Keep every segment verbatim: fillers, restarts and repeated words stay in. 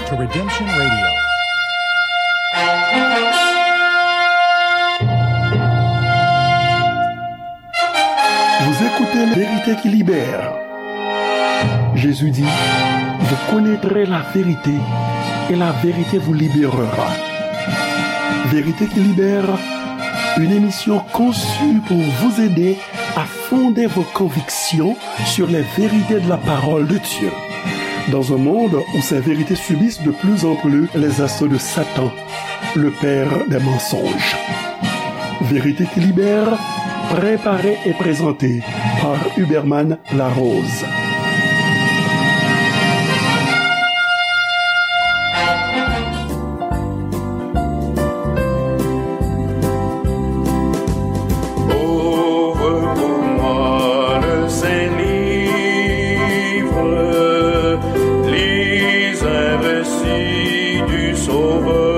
to Redemption Radio. Vous écoutez la vérité qui libère. Jésus dit, vous connaîtrez la vérité et la vérité vous libérera. Vérité qui libère, une émission conçue pour vous aider à fonder vos convictions sur les vérités de la parole de Dieu. Dans un monde où ces vérités subissent de plus en plus les assauts de Satan, le père des mensonges. Vérité qui libère, préparée et présentée par Huberman Larose. Ouvre pour moi le Saint-Livre, lis un récit du Sauveur.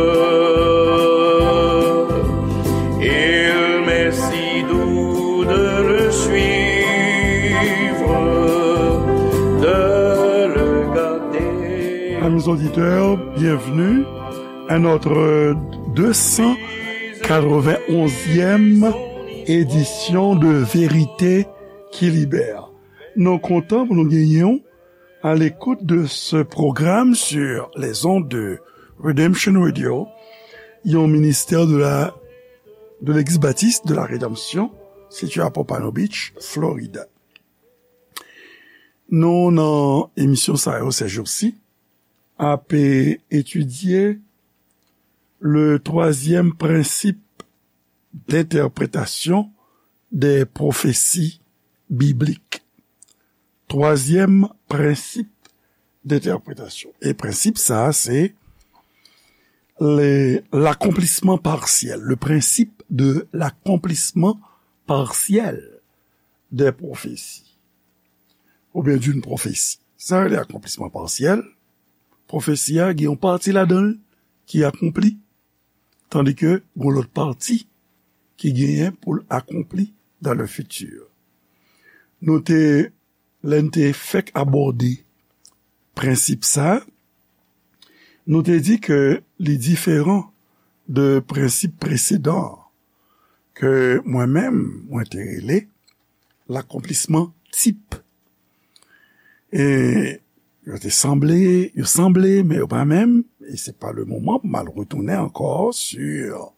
Il m'est si doux de le suivre, de le garder. Amis auditeurs, bienvenue à notre deux cent quatre-vingt-onzième édition de Vérité qui Libère. Nou kontan pou nou genyen w à l'écoute de ce programme sur les ondes de Redemption Radio, yon ministè de la, de l'Église baptiste de la Rédemption, situé à Pompano Beach, Florida. Nou nan emisyon sa yo ces jours-ci, ap etidye le troisième principe d'interprétation des prophéties bibliques. Twazyèm prensip dentèpretasyon. E prensip sa a, se le, l'accomplissement partiel, le principe de l'accomplissement partiel des prophéties. Oubyen d'une prophétie. Sa rele akonplisman pasyèl. Pwofesi a gen yon pati ladan l ki akonpli, tandike gen lòt pati ki genyen pou l akonpli dans le futur. Nou te, lè n te fèk abòde prensip sa, nou te di ke li diferan de prensip presedan an, ke mwen menm, mwen te rele lakonplisman tip. E yo te sanble, yo sanble, men yo pa menm, e se pa le moman pou m al retounen ankò sur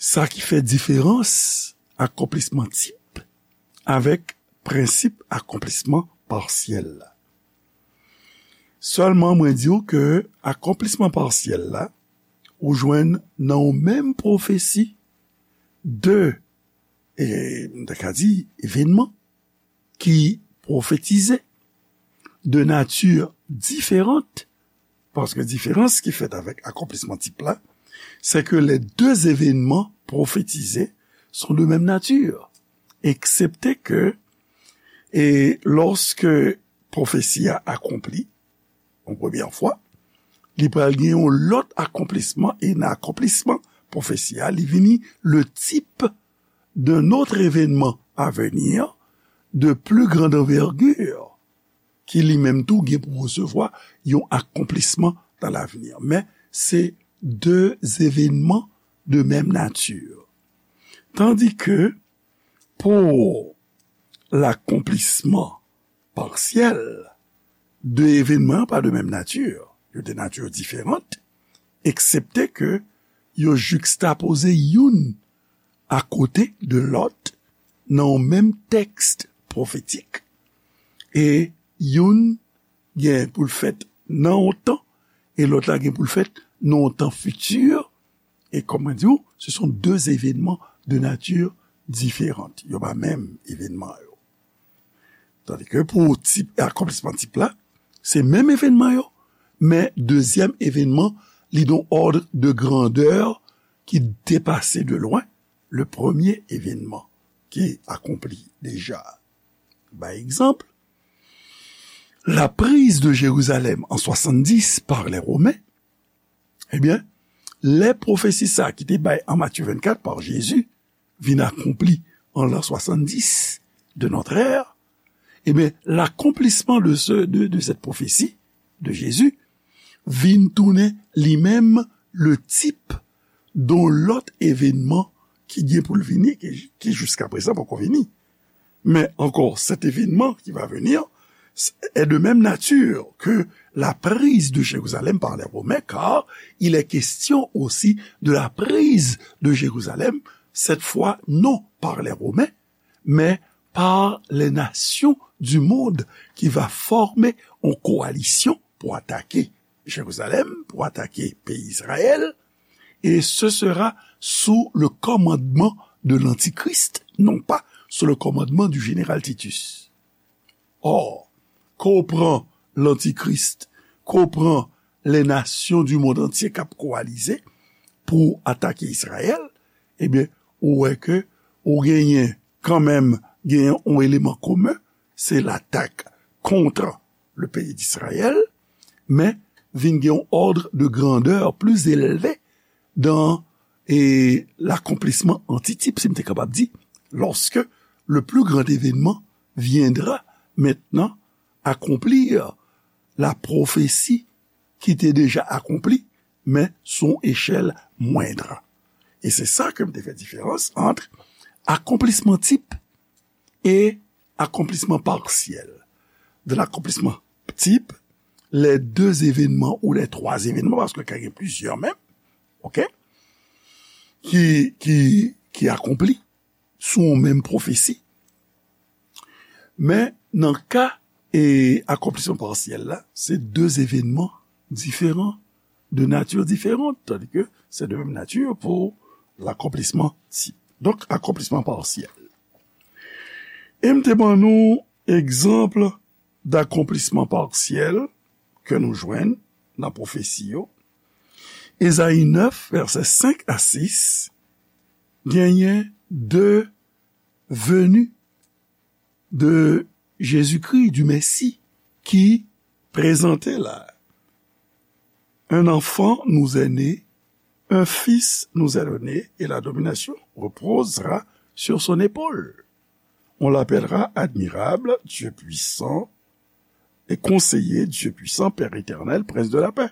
sa ki fè diferans akonplisman tip avèk prensip akonplisman pasyèl la. Sèlman, mwen di w ke akonplisman pasyèl la, ou jwenn nan yon menm pwofesi de, e, m ta ka di, evènman ki pwofetize de nati diferan, paske diferans ki fèt avèk akonplisman tip la, c'est que les deux événements prophétisés sont de même nature, excepté que, e, lorsque pwofesi a akonpli, yon premyè fwa, li pral gen yon lòt akonplisman, e nan akonplisman pwofesi a, li vini le type d'un autre événement à venir de plus grande envergure, ki li menm tou gen pou resevwa yon akonplisman dans l'avenir. Men, se de evènman de menm nati. Tandike, pou lakonplisman pasyèl, de evènman yo pa de menm nati. Yo de nati diferan, eksepte ke yo jikstapoze youn akote de lòt nan yon menm tèks pwofetik. E youn gen pou l fèt nan yon tan, e lòt la gen pou l fèt nan yon tan fiti. E kòm mwen di w, ce sont deux événements de nature différente. Yo pa menm evènman yo. Tandike pou tip, akonplisman tip la, se menm evènman yo, men dezyèm evènman, li nan yon ordre de grandeur ki depase de lwen le premye evènman ki akonpli deja. Bay egzanp, la prise de Jérusalem en soixante-dix par les Romains, ebyen, lè pwofesi sa ki te bay an Matthieu vingt-quatre par Jésus vin akonpli an l'an soixante-dix de notre ère, ebyen, l'accomplissement de ce, de, de cette prophétie de Jésus vin tounen li menm le type d'un lot evènman ki gen pou l vini, ki, ki jiska prezan poko vini. Men ankò, cet événement qui va venir est de même nature que la prise de Jérusalem par les Romains, car il est question aussi de la prise de Jérusalem, cette fois non par les Romains, mais par les nations du monde qui va former une coalition pour attaquer Jérusalem, pour attaquer pays Israël, et ce sera sous le commandement de l'Antichrist, non pas sous le commandement du général Titus. Or, ke w pran lantikris, ke w pran les nations du monde entier k ap kowalize pou atake Izrayèl, ebyen, ou wè ke ou genyen kanmenm, genyen yon eleman komen, se latak kont le pays d'Israël, men vin gen yon ordre de grandeur plus élevé dans, et l'accomplissement anticipe, si m te kapab di, lorsque le plus grand événement viendra maintenant accomplir la prophétie qui était déjà accomplie, mais sous une échelle moindre. Et c'est ça que me fait différence entre accomplissement type et accomplissement partiel. De l'accomplissement type, les deux événements ou les trois événements, paske ka gen plizyè menm, ok, ki, ki, ki akonpli sou yon menm pwofesi. Men nan ka e akonplisman pasyèl la, se de evènman diferan, de nati diferan, tandis que c'est de même nature pour l'accomplissement type. Donk, akonplisman pasyèl. E m te ban nou egzanp d'accomplissement partiel ke nou jwenn nan pwofesi yo. Ezayi nèf, vèsè senk a sis, genyen de venue de Jésus-Christ, du Messie, ki prezante la. Un enfant nous est né, un fils nous est donné, et la domination reposera sur son épaule. On l'appellera admirable, Dieu puissant, et conseiller, Dieu puissant, Père éternel, prince de la paix.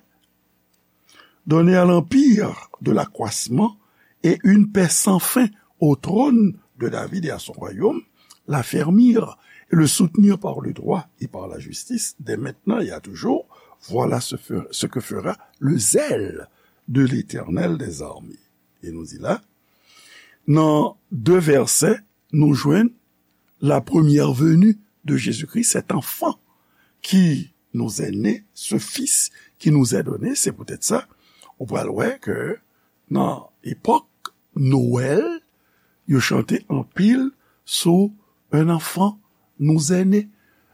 Donner à l'empire de l'accroissement et une paix sans fin au trône de David et à son royaume, l'affermir et le soutenir par le droit et par la justice, dès maintenant et à toujours, voilà ce, fe- ce que fera le zèle de l'Éternel des armées. E nou di la, nan de vèsè, nou jwenn la première venue de Jésus-Christ, cet enfant qui nous est né, ce fils qui nous est donné. Se poutèt sa, ou pral wè ke nan epòk Nwèl, yo chante anpil sou un enfant nous est né.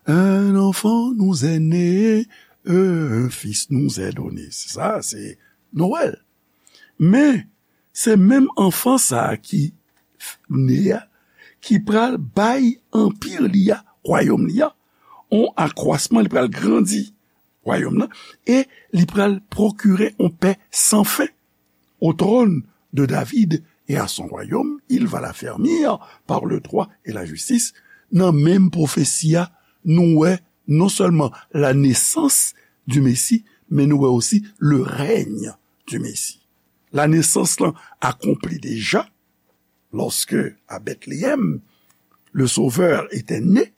Un enfant nous est né, un fils nous est donné. Se sa, se Nwèl. Men, se menm anfan sa a ki f- ne a, ki pral bay anpi li a, wayòm li a, on akwasman, li pral grandi wayòm nan, e li pral pwokire on pè san fen au trône de David et à son royaume, il va l'affermir par le droit et la justice. Nan menm pwofesi a, nou wè non sèlman la naissance du Messie, men nou wè osi le règne du Messie. La nesans lan akonpli deja, lorsque à Bethléem, le Sauveur était né,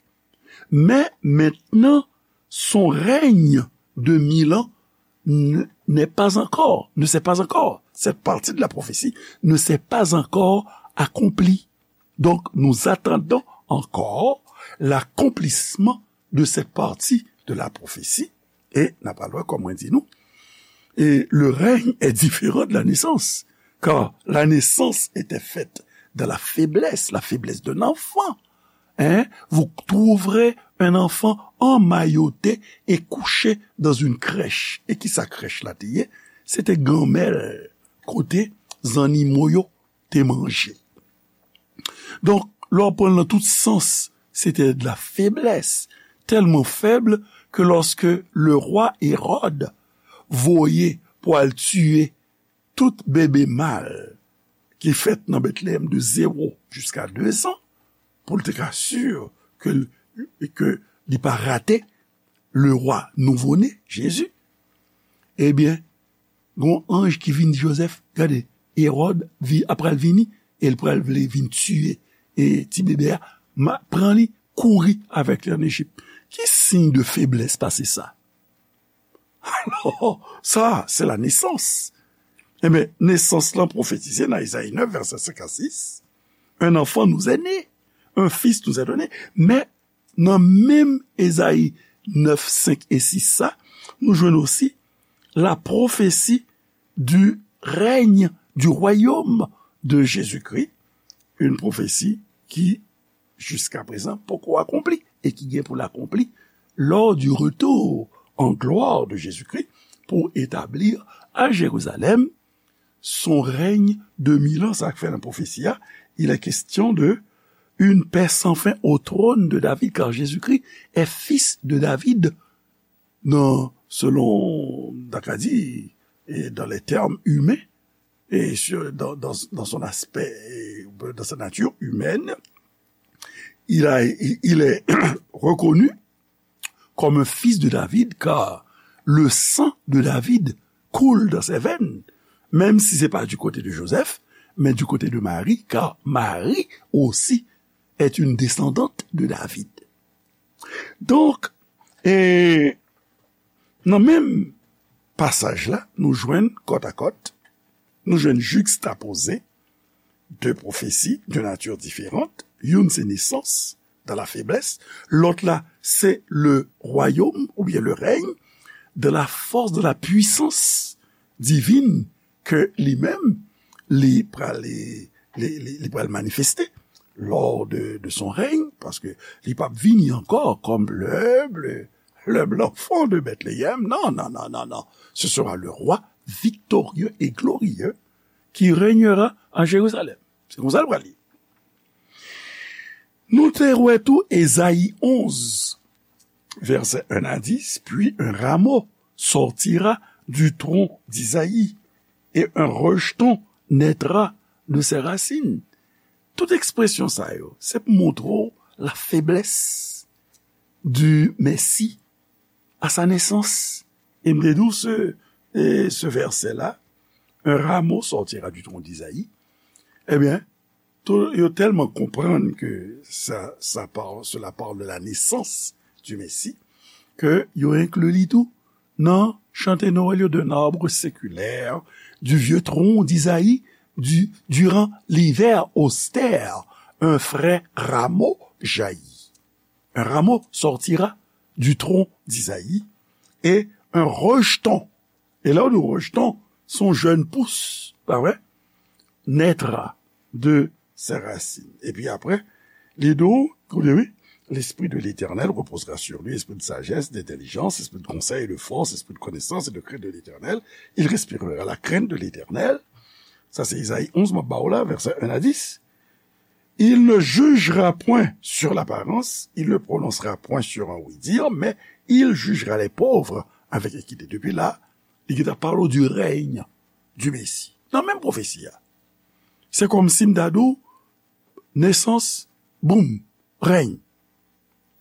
mais maintenant, son règne de mille ans n- n'est pas encore, ne s'est pas encore, cette partie de la prophétie ne s'est pas encore accomplie. Donc, nous attendons encore l'accomplissement de cette partie de la prophétie. E n ap al wè, kòm mwen di nou, et le règne est différent de la naissance, car la naissance était faite dans la faiblesse, la faiblesse d'un enfant. Hein? Vous trouverez un enfant emmailloté et couché dans une crèche. E ki sa krèch la te ye? Se te ganmèl kote zannimo yo te manje. Donk, lè w pran l nan tout sans, se te de la faiblesse, tellement faible que lorsque le roi Hérode voye pou al tiye tout bebe mal ki fèt nan Bethléem de zéro jusqu'à deux ans, pou l te ka si ke, ke li pa rate le roi nouvo-né, Jésus, Ebyen, gon anj ki vin di Jozèf, gade, Ewòd vi, ap pral vini, e l pral vle vin tiye e ti bebe a, ma, pran li, kouri avèk li ann Ejip. Ki siy de feblès pase sa? Alò, sa, se la nesans. Ebyen, nesans lan pwofetize nan Ezayi nèf, vèsè senk a sis, un enfant nous est né, un fils nous est donné. Men, nan menm Ezayi nèf, senk e sis sa, nou jwenn osi la prophétie du règne, du royaume de Jésus-Christ, une prophétie qui, jusqu'à présent, poko akonpli e ki gen pou l akonpli lors du retour en gloire de Jésus-Christ pour établir à Jérusalem son règne de mille ans. Sa k fè nan pwofesi a, il est question de une paix sans fin au trône de David, car Jésus-Christ est fils de David, dans, selon, n ta ka di, et dans les termes humains, et sur, dans, dans, dans son aspect, et dans sa nature humaine, il a, il est reconnu comme un fils de David, car le sang de David coule dans ses veines, même si c'est pas du côté de Joseph, mais du côté de Marie, car Marie aussi est une descendante de David. Donk, e, nan menm pasaj la, nou jwenn kòtakòt, nou jwenn jikstapoze de pwofesi de nati diferan. Youn se nesans dans la faiblesse, lòt la se le royaume oubyen le règne de la force, de la puissance divine ke li menm, li pral, li, li, li, li pral manifeste lors de, de son règne, paske li p ap vini ankò comme le, le, le blanc enfant de Bethléem. Non, non, non, non, non. Ce sera le roi victorieux et glorieux qui régnera à Jérusalem. Se konsa l pral ye. Nou te wè tou Ezayi onz, vèsè un à dix, puis un rameau sortira du tronc d'Isaïe, et un rejeton naîtra de ses racines. Tout ekspresyon sa yo, se pou montre w la faiblesse du Messie à sa naissance. E m te di w se, e, se vèsè la, un rameau sortira du tronc d'Isaïe. Ebyen, tou, yo tèlman konprann ke sa, sa parle, cela parle de la naissance du Messie, ke yo enkli li tou nan chante Nwèl yo, d'un arbre séculaire, du vieux tronc d'Isaïe, du, durant l'hiver austère, un frais rameau jaillit. Un rameau sortira du tronc d'Isaïe, et un rejeton, e lè w di rejeton, se yon jèn pous, pa vre? Naîtra de ses racines. Epi apre, li di w, koute wi, l'Esprit de l'Éternel reposera sur lui, esprit de sagesse, d'intelligence, esprit de conseil et de force, esprit de connaissance et de crainte de l'Éternel. Il respirera la crainte de l'Éternel. Sa se Ezayi onz, m ap ba w la, vèsè un à dix. Il ne jugera point sur l'apparence, il ne prononcera point sur un oui-dire, mais il jugera les pauvres avec équité. Depi la, li gentan pale w du règne du Messie. Nan menm pwofesi a. Se kòmsi m ta di w, nesans, boum, règne.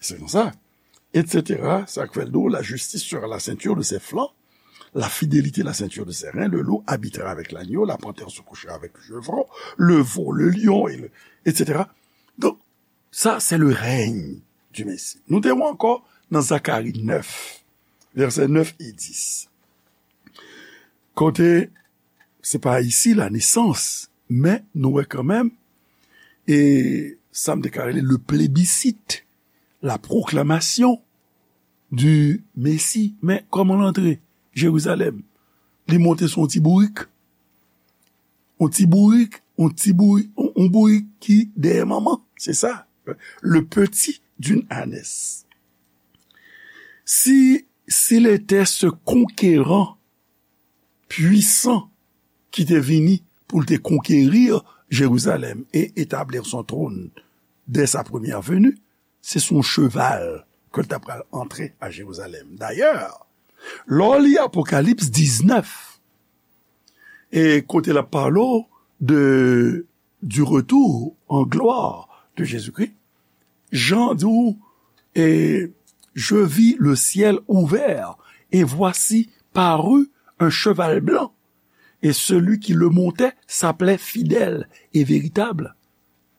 Se konsa. Et cetera. Sa k fè l di w, la justice sera la ceinture de ses flancs, la fidélité la ceinture de ses reins, le loup habitera avec l'agneau, la panthère se couchera avec le chevreau, le veau, le lion, et le, et cetera. Donk, sa, se le règne du Messie. Nou te wè ankò nan Zakari nèf, vèsè nèf e dis. Kote, se pa isi la nesans, men nou wè kanmenm, e sa m te ka rele le plébiscite, la proclamation du Messie. Men kòman l antre Jerizalèm? Li monte sou yon ti bourik. Yon ti bourik, yon ti bourik, yon, yon bourik ki dèyè manman. Se sa. Le petit d'une ânesse. Si, s'il était ce conquérant puissant ki te vini pou l te konkeri Jerizalèm e etablir son trône dès sa première venue, se sou yon cheval ke l ta pral antre a Jerizalèm. Dayè, lè w li Apokalips diznèf, e kote l ap pale w de, du retour en gloire de Jésus-Christ, Jan di w, et je vis le ciel ouvert, et voici parut un cheval blanc, et celui qui le montait s'appelait Fidèle et Véritable,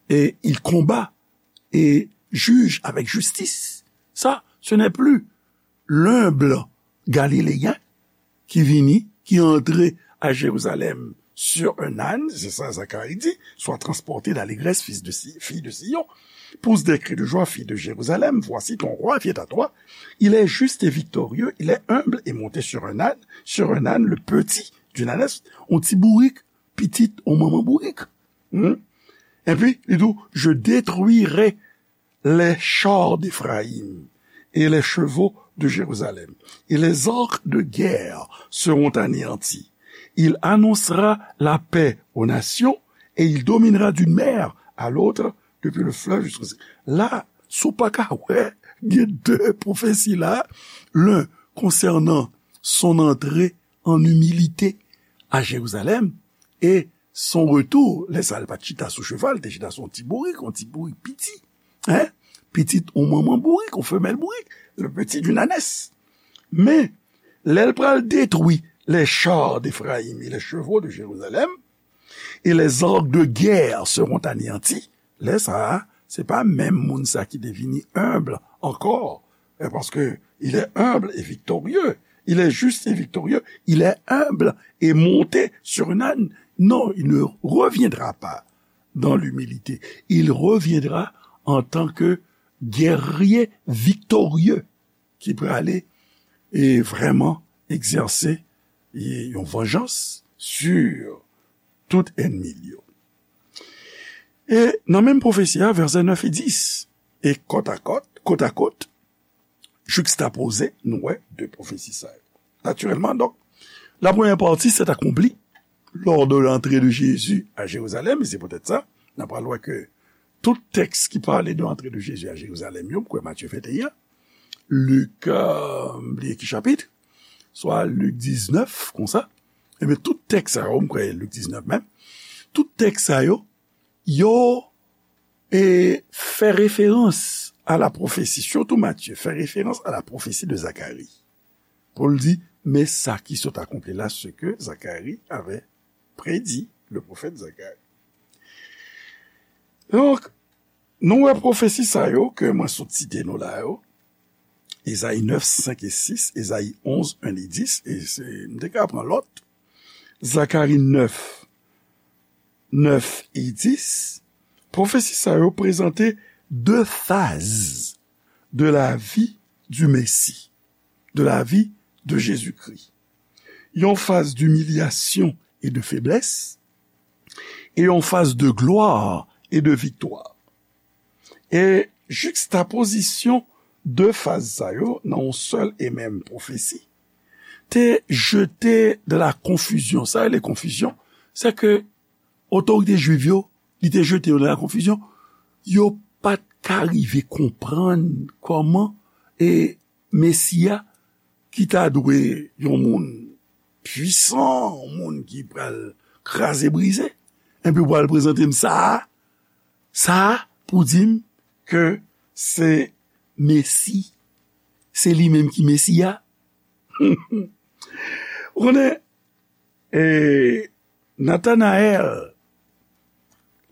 et il combat et juge avec justice. Ça, ce n'est plus l'humble Galiléen qui vini, qui entre à Jérusalem sur un âne, c'est ça Zacharie dit, sois transporté d'allégresse, fils de Si-, fille de Sion. Pousse des cris de joie, fille de Jérusalem, voici ton roi vient à toi. Il est juste et victorieux, il est humble et monté sur un âne, sur un âne, le petit d'une ânesse, on ti bourik, pitit, on manman bourik. Hmm? Epi, li di, je détruirai les chars d'Éphraïm et les chevaux de Jérusalem, et les arcs de guerre seront anéantis. Il annoncera la paix aux nations et il dominera d'une mer à l'autre, depuis le fleuve jusqu'au... La, si w pa ka wè, gen de pwofesi la, l'un concernant son entrée en humilité à Jérusalem, et son retour, lè sa l pa t chita sou cheval, te chita sou yon ti bourik, yon ti bourik piti. Hein? Pitit yon manman bourik, yon femèl bourik, le petit d'une ânesse. Men, lè l pral detwi les chars d'Éphraïm et les chevaux de Jérusalem, et les arcs de guerre seront anéantis, lè sa a, se pa menm moun sa ki te vini humble ankò, eh, parce que il est humble et victorieux, il est juste et victorieux, il est humble et monté sur un âne. Non, il ne reviendra pas dans l'humilité. Il reviendra en tant que guerrier victorieux ki prale e vrèman egzèse e yon vanjans sur tout ènmi l yo. E nan menm pwofesi a, vèsè nèf e dis, e kòt a kòt, kot a kot, jikstapoze, nou wè de pwofesi sa yo. Natirèlman, donk, la premyè pati, c'est accompli lors de l'entrée de Jésus à Jérusalem, e se poutèt sa, n a pral wè ke tout tèks ki pale de l'entrée de Jésus à Jérusalem yo, m kwè Matye venteyen, Lik, euh, m bliye ki chapit, swa Lik diznèf, konsa. Ebyen, tout tèks sa yo, m kwè Lik diznèf menm, tout tèks sa yo, yo, e, fè referans a la pwofesi, sitou Matye, fè referans a la pwofesi de Zakari. Pou l di, men sa ki sot akonpli la, ce que Zacharie avait prédit, le prophète Zacharie. Donk, nou wè pwofesi sa yo ke mwen sot site nou la yo, Ezayi nèf, senk e sis, Ezayi onz, en e dis, e se, m te ka pran lòt, Zakari nèf, nèf e dis, pwofesi sa yo prezante de faz de la vie du Messie, de la vie de Jésus-Christ. Yon faz d'humiliation et de faiblesse, e yon faz de gloire et de victoire. E jikstapozisyon de faz sa yo nan yon sèl e menm pwofesi te jete de la konfizyon. Sa rele konfizyon, se ke otorite jwiv yo, li te jete yo nan la konfizyon. Yo pa t ka rive konprann kòman e Mesi a, ki ta dwe yon moun pwisan, yon moun ki pral kraze brize, epi w pral prezante m sa a, sa a pou di m ke se Mesi, se li menm ki Mesi a. Ou konnen, e, Natanayèl,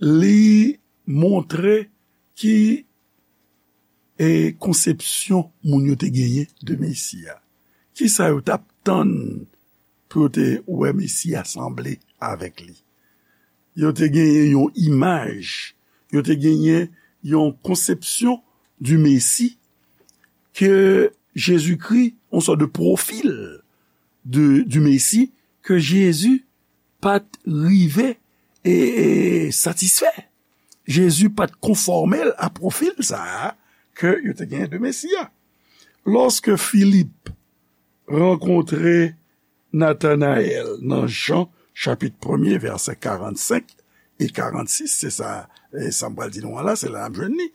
li montre ki, e, konsepsyon moun yo te genyen de Mesi a. Kisa yo t ap tann pou yo te wè Mesi a sanble avèk li? Yo te genyen yon imaj, yo te genyen yon konsepsyon du Messie ke Jezikri, yon sòt de pwofil de, du Messie ke Jezi pa t rive e, e satisfè. Jezi pa t konfòme l a pwofil sa a ke yo te genyen de Mesi a. Lòske Filip rankontre Natanayèl nan Jan chapit premye, vèsè karannsenk e karannsis, se sa, e, sa m pral di nou an la, se la n ap jwenn li.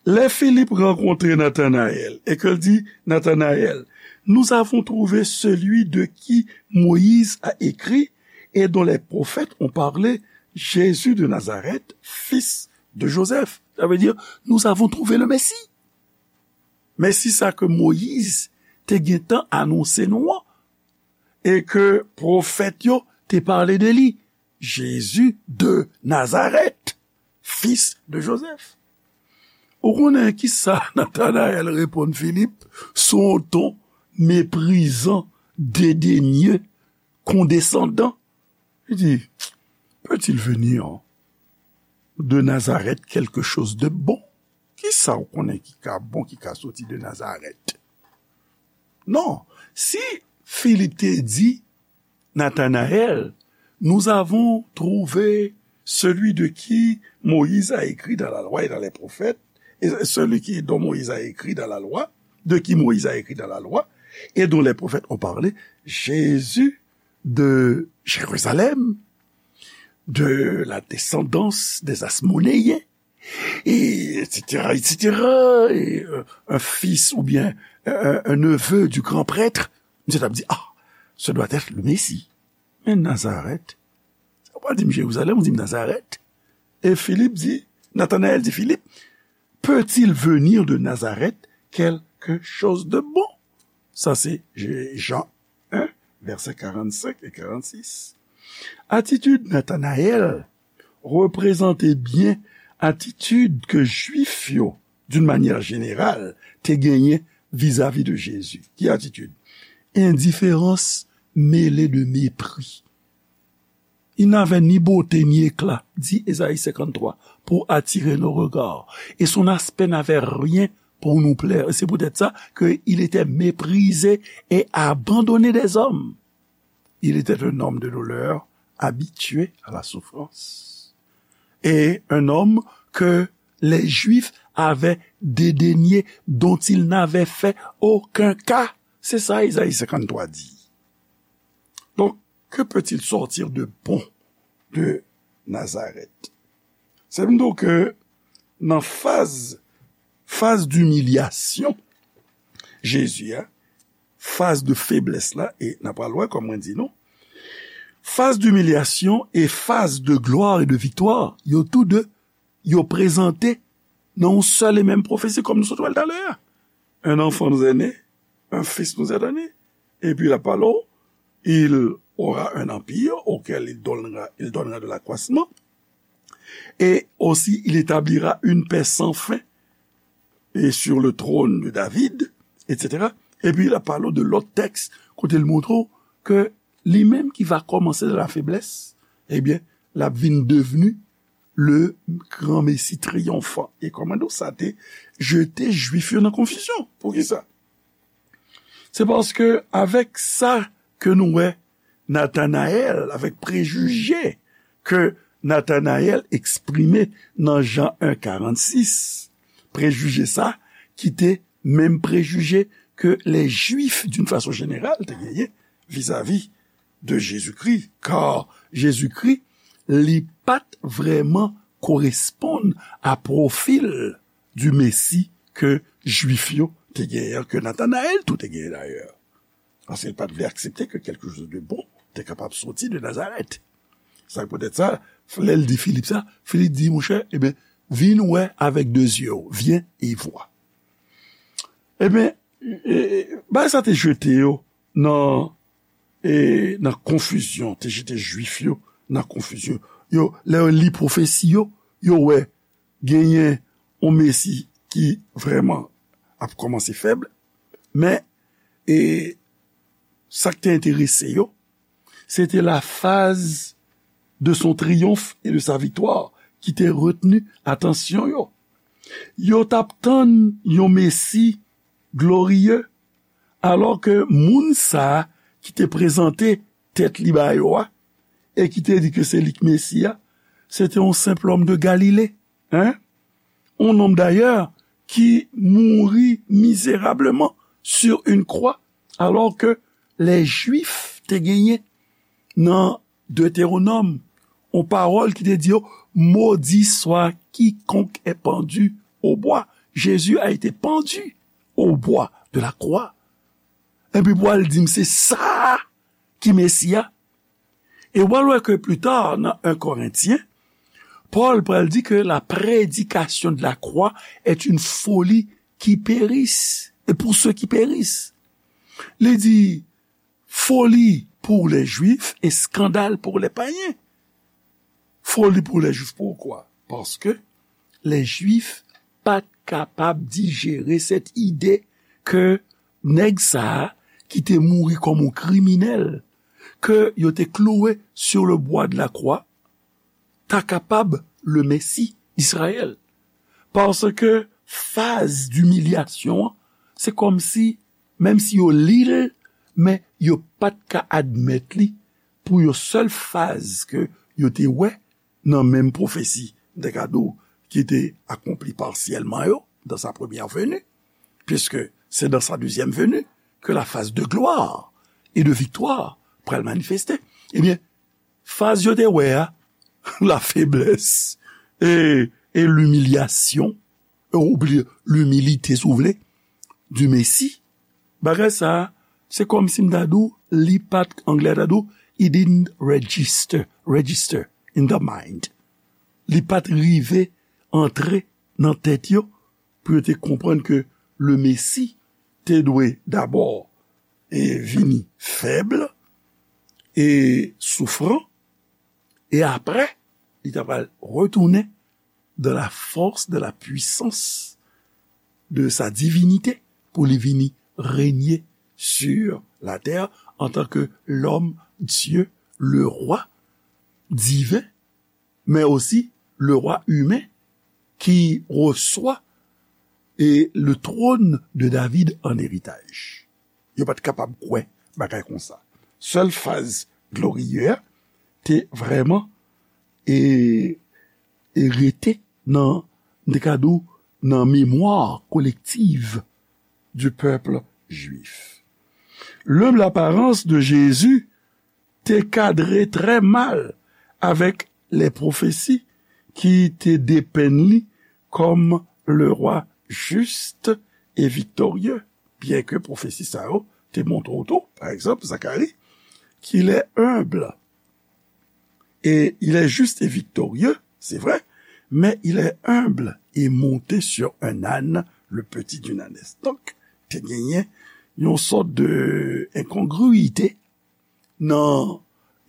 Lè Filip rankontre Natanayèl e ke l di, Natanayèl, nous avons trouvé celui de qui Moïse a écrit et dont les prophètes ont parlé, Jésus de Nazareth, fils de Joseph. Sa vle di, nous avons trouvé le Messie. Mesi sa ke Moyiz te gentan anonse nou an, e ke pwofèt yo te pale de li, Jezi de Nazarèt, fis de Jozèf. Ou konnen kisa Natanayèl reponn Filip sou yon ton meprizan, dedenye, kondesandan? Li di, peut-il venir de Nazareth quelque chose de bon? Kisa ou konnen ki ka bon, ki ka soti de Nazarèt? Non, si Filip te di Nathanaël, nous avons trouvé celui de qui Moïse a écrit dans la loi et dans les prophètes, et celui qui, dont Moïse a écrit dans la loi, de qui Moïse a écrit dans la loi, et dont les prophètes ont parlé, Jésus de Jérusalem, de la descendance des Asmonéens, et et cetera, et cetera, et, euh, un fils ou bien un, un neveu du grand prêtre, misye t ap di, ah, ce doit être le Messie. Men Nazarèt, sa w pral di m Jerizalèm, ou di m Nazarèt. E Filip di, Nathanaël di Filip, peut-il venir de Nazareth quelque chose de bon? Sa se Jean un, verset quarante-cinq et quarante-six. Atitid Nathanaël reprezante byen atitid ke Jwif yo, d'une manière générale, te genyen vizavi de Jezi. Ki atitid? Indifférence mêlée de mépris. Il n'avait ni beauté ni éclat, dit Ésaïe cinquante-trois, pour attirer nos regards, et son aspect n'avait rien pour nous plaire. Et c'est peut-être ça qu'il était méprisé et abandonné des hommes. Il était un homme de douleur, habitué à la souffrance. Et un homme que les Juifs avaient dédaigné, dont ils n'avaient fait aucun cas. C'est ça, Ésaïe cinquante-trois dit. Donc, que peut-il sortir de bon de Nazareth? Se m di w ke nan faz, faz d'imilyasyon Jezi a, faz de feblès la, e n a pral wè kòm mwen di nou, faz d'imilyasyon e faz de glwa e de viktwa, yo tou de, yo prezante nan yon sèl e menm pwofesi, kòm nou sot wè l talè a. Un enfant nous est né, un fils nous est donné. Et puis la parole, il aura un empire auquel il donnera, il donnera de l'accroissement. Et aussi, il établira une paix sans fin et sur le trône de David, et cetera. Epi l ap pale w de lòt tèks kote l montre w ke li menm ki va kòmanse nan lafeblès, ebyen, l ap vin devni le gran Mesi triyonfan. E kòman nou sa te jete Jwif yo nan konfizyon? Poukisa? Se paske avèk sa ke nou wè Nathanaël, avèk prejije ke Nathanaël eksprime nan Jan un karannsis, prejije sa ki te menm prejije ke lè Jwif, d'une façon générale, te genyen vizavi de Jezikri, kar Jezikri, li pa t vrèman koresponn a pwofil di Mesi ke Jwif yo te genyen, ke Nathanaël tou te genyen dayè. Paske l pa t vle aksepte ke quelque chose de bon te kapab soti de Nazarèt. Sa poutèt sa, lè l di Filip sa, Filip di, monchè, ebyen, vin wè avèk de zye w, viens et vois. Ebyen, e, e, bagay sa te jete yo nan, e, nan konfizyon, te jete Jwif yo nan konfizyon. Yo, lè yo li pwofesi yo, yo wè genyen yon Mesi ki vrèman ap kòmanse fèb, men, e, sa k te enterese yo, se te la phase de son triomphe et de sa victoire ki te retni atansyon yo. Yo t ap tann yon Mesi gloriye, alò ke moun sa a ki te prezante tèt li ba yo a, e ki te di ke se li k Mesi a, se te yon senp lòm de Galile, hein? Un homme d'ailleurs qui mourut misérablement sur une croix, alors que les Juifs te genyen nan Deutéronome, yon pawòl ki te di yo, maudit soit quiconque est pendu au bois. Jésus a été pendu au bois de la croix. Epi pou al di m se sa ki Mesi a. E w al wè ke pli ta, nan un Corinthiens, Paul pral di ke la prédication de la croix est une folie qui périsse, et pour ceux qui périssent. Li di, foli pour les Juifs et scandale pour les païens. Foli pour les Juifs, poukwa? Paske lè Jwif pa t kapab dijere sèt ide ke nèg sa a ki te mouri kòm yon kriminèl, ke yo te klouwe sur le bois de la croix, ta kapab le Mesi d'Izrayèl. Paske faz dimilyasyon an, se kòmsi, menm si yo li l, men yo pa t ka admèt li pou yon sèl faz ke yo te wè nan menm pwofesi, m te ka di w, ki te akonpli pasyèlman yo, dans sa première venue, puisque c'est dans sa deuxième venue que la phase de gloire et de victoire pral manifeste. Ebyen, faz yo te wè a, la faiblesse et, et l'humiliation, ou byen, l'humilité, si w vle, du Messie, bagay sa a, se kòmsi m ta di w, li pa t, anglè ta di w, it didn't register, register in the mind. Li pa t rive antre nan tèt yo pou yo te konprann ke le Mesi te dwe dabò e vini fèb e soufran, e apre, li ta pral retounen dans la force, dans la puissance de sa divinité, pou li vini renye sur la terre en tant que l'homme Dieu, le roi divin, mais aussi le roi humain qui reçoit et le trône de David en héritage. Yo pa t kapab kwè bagay konsa. Sèl faz gloriye a te vrèman e, e rete nan, m te ka di w, nan memwa kolektiv du peuple juif. L'humble apparence de Jésus te kadre trè mal avèk lè pwofesi ki te depenn li kòm le roi juste et victorieux, byenke pwofesi sa yo te montre w tou, pa egzanp, Zakari, qu'il est humble et il est juste et victorieux, c'est vrai, mais il est humble et monté sur un âne, le petit d'une ânesse. Donk, te genyen yon sòt de enkongwite nan,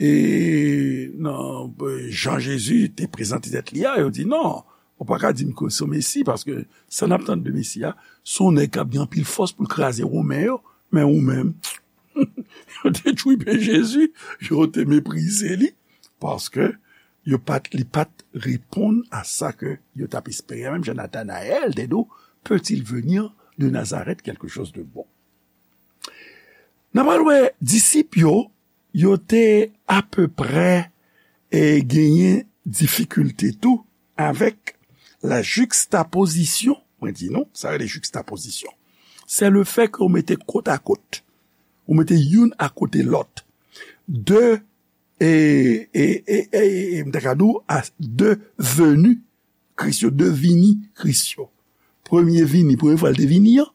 e, nan, e, jan Jezi te prezante tèt li a, yo di, "Non, ou pa ka di m ke se yon Mesi, paske sa n ap tann de Mesi a, se yon nèg k ap gen anpil fòs pou l kraze Women yo, men ou menm." Yo te tchwipe Jezi, yo te meprize li, paske yo pa t, li pa t reponn a sa ke yo t ap espere, menm jan Natanayèl te di w, "Peut-il venir de Nazareth quelque chose de bon?" N a pral wè disip yo, yo te apeprè, e, genyen difikilte tou avèk la juxtaposition. Mwen di nou, sa rele juxtaposition. Se le fè ke ou mete kot a kot. Ou mete youn akote lòt. De, e, e, e, e, e, m ta ka di w, a de veni Kris yo, de vini Kris yo. Premye vini, premye fwa l te vini an,